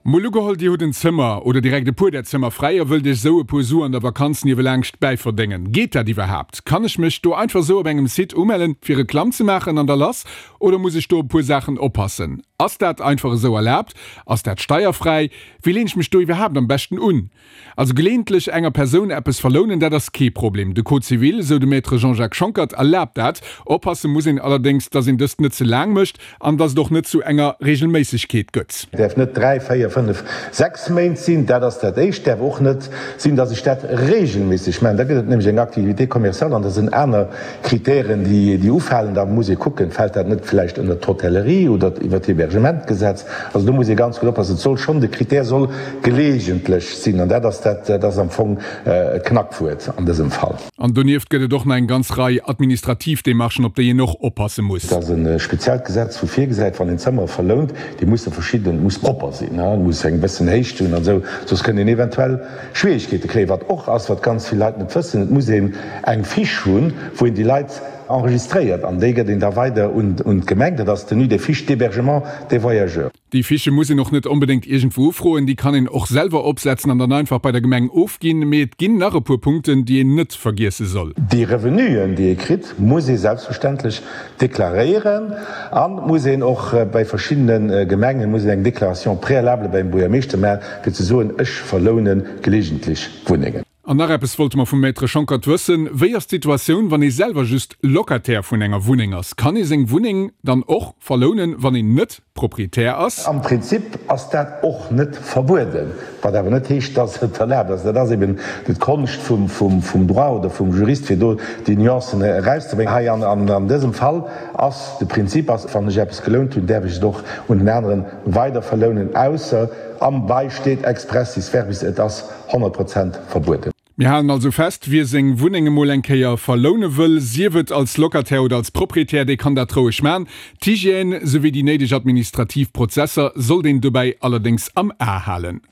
Mol ugeholl, Dir hutt en Zëmmer oder direkt e puer där Zëmmer fräi a wëllt Iech esou e puer Su an der Vakanz niewelaangscht bäiverdéngen. Geet dat iwwerhaapt? Kann ech mech do einfach esou op engem Site umellen fir Reklamm ze maachen an da lass? Oder muss ech do op e puer Saachen oppassen? Ass dat einfach esou erlaabt? Ass dat steierfräi? Wéi leen ech mech do iwwerhaapt am beschten un? Also geleeëntlech enger Persoun eppes verlounen, dat ass kee Problem. De Code civil, esou de Maître Jean-Jacques Schonckert, erlaabt dat. Oppasse muss een allerdéngs, datt een dëst net ze laang mécht an datt et och net zu enger Reegelméissegkeet gëtt. Et däerf net 3, 4, 5, 6 Méint sinn, dat ass dat Éischt. Et däerf och net sinn, datt ech dat reegelméisseg maachen. Da gëtt et nämlech eng Activité commerciale an da sinn aner Kritären, déi ufalen. Da muss ee kucken, fält dat net vläicht ënnert d'Hotellerie oder iwwert d'Hébergementgesetz. Also do muss ee ganz gutt oppassen. Et soll schonn, de Kritär soll geleegentlech sinn, an dat ass dat, dat ass am Fong d'Knackwuert an dësem Fall. An donieft gëtt et och nach eng ganz Rei administrativ Demarchen, op déi een och oppasse muss. Et ass e speziellt Gesetz, wou virgesäit, wann een Zëmmere verlount, déi musse verschidden, et muss propper sinn, et muss eng bëssen Héicht hunn an esou, soss kënnt een eventuell Schwierigkeete kréien. Wat och ass, wat ganz vill Leit net wëssen, et muss een eng Fiche hunn, wou een déi Leit enregistréiert, an déi gëtt een da weider un d'Gemeng, dat ass d'Tenue des fiches d'hébergement des voyageurs. Déi Fiche muss een och net onbedéngt iergendwou ufroen, déi kann een och selwer opsetzen an dann einfach bei der Gemeng ofginn. Mee et ginn nach e puer Punkten, déi een net vergiesse soll. Déi Revenuen, déi ee kritt, muss ee selbstverständlech deklaréieren an muss een och bei verschiddene Gemengen muss een eng Déclaration préalable beim Buergermeeschter maachen, fir ze soen, ech verloune gelegentlech Wunnengen. An nach eppes wollte mer vum Maître Schonckert wëssen, Wéi ass d'Situatioun, wann ee selwer just Locataire vun enger Wunneng ass? Kann ee seng Wunneng dann och verlounen, wann een net Proprietär ass? Am Prinzip ass dat och net verbueden, wat awer net heescht, dass et erlaabt ass. Dat ass eben d'Konscht vum Droit oder vum Jurist, fir do déi Nuancen erauszebréngen. Hei an dësem Fall ass de Prinzip ass, wann ech eppes gelount hunn, däerf ech et och un en aneren weider verlounen, ausser am Bail steet expressis verbis, et ass 100 Prozent verbueden. Mir halen also fest, Wie seng Wunneng emol eng Kéier verloune wëll, sief et als Locataire oder als Proprietär, dee kann dat roueg man. D'Hygiène souwéi déi néideg administrativ Prozesser sollt een dobäi allerdéngs am A halen.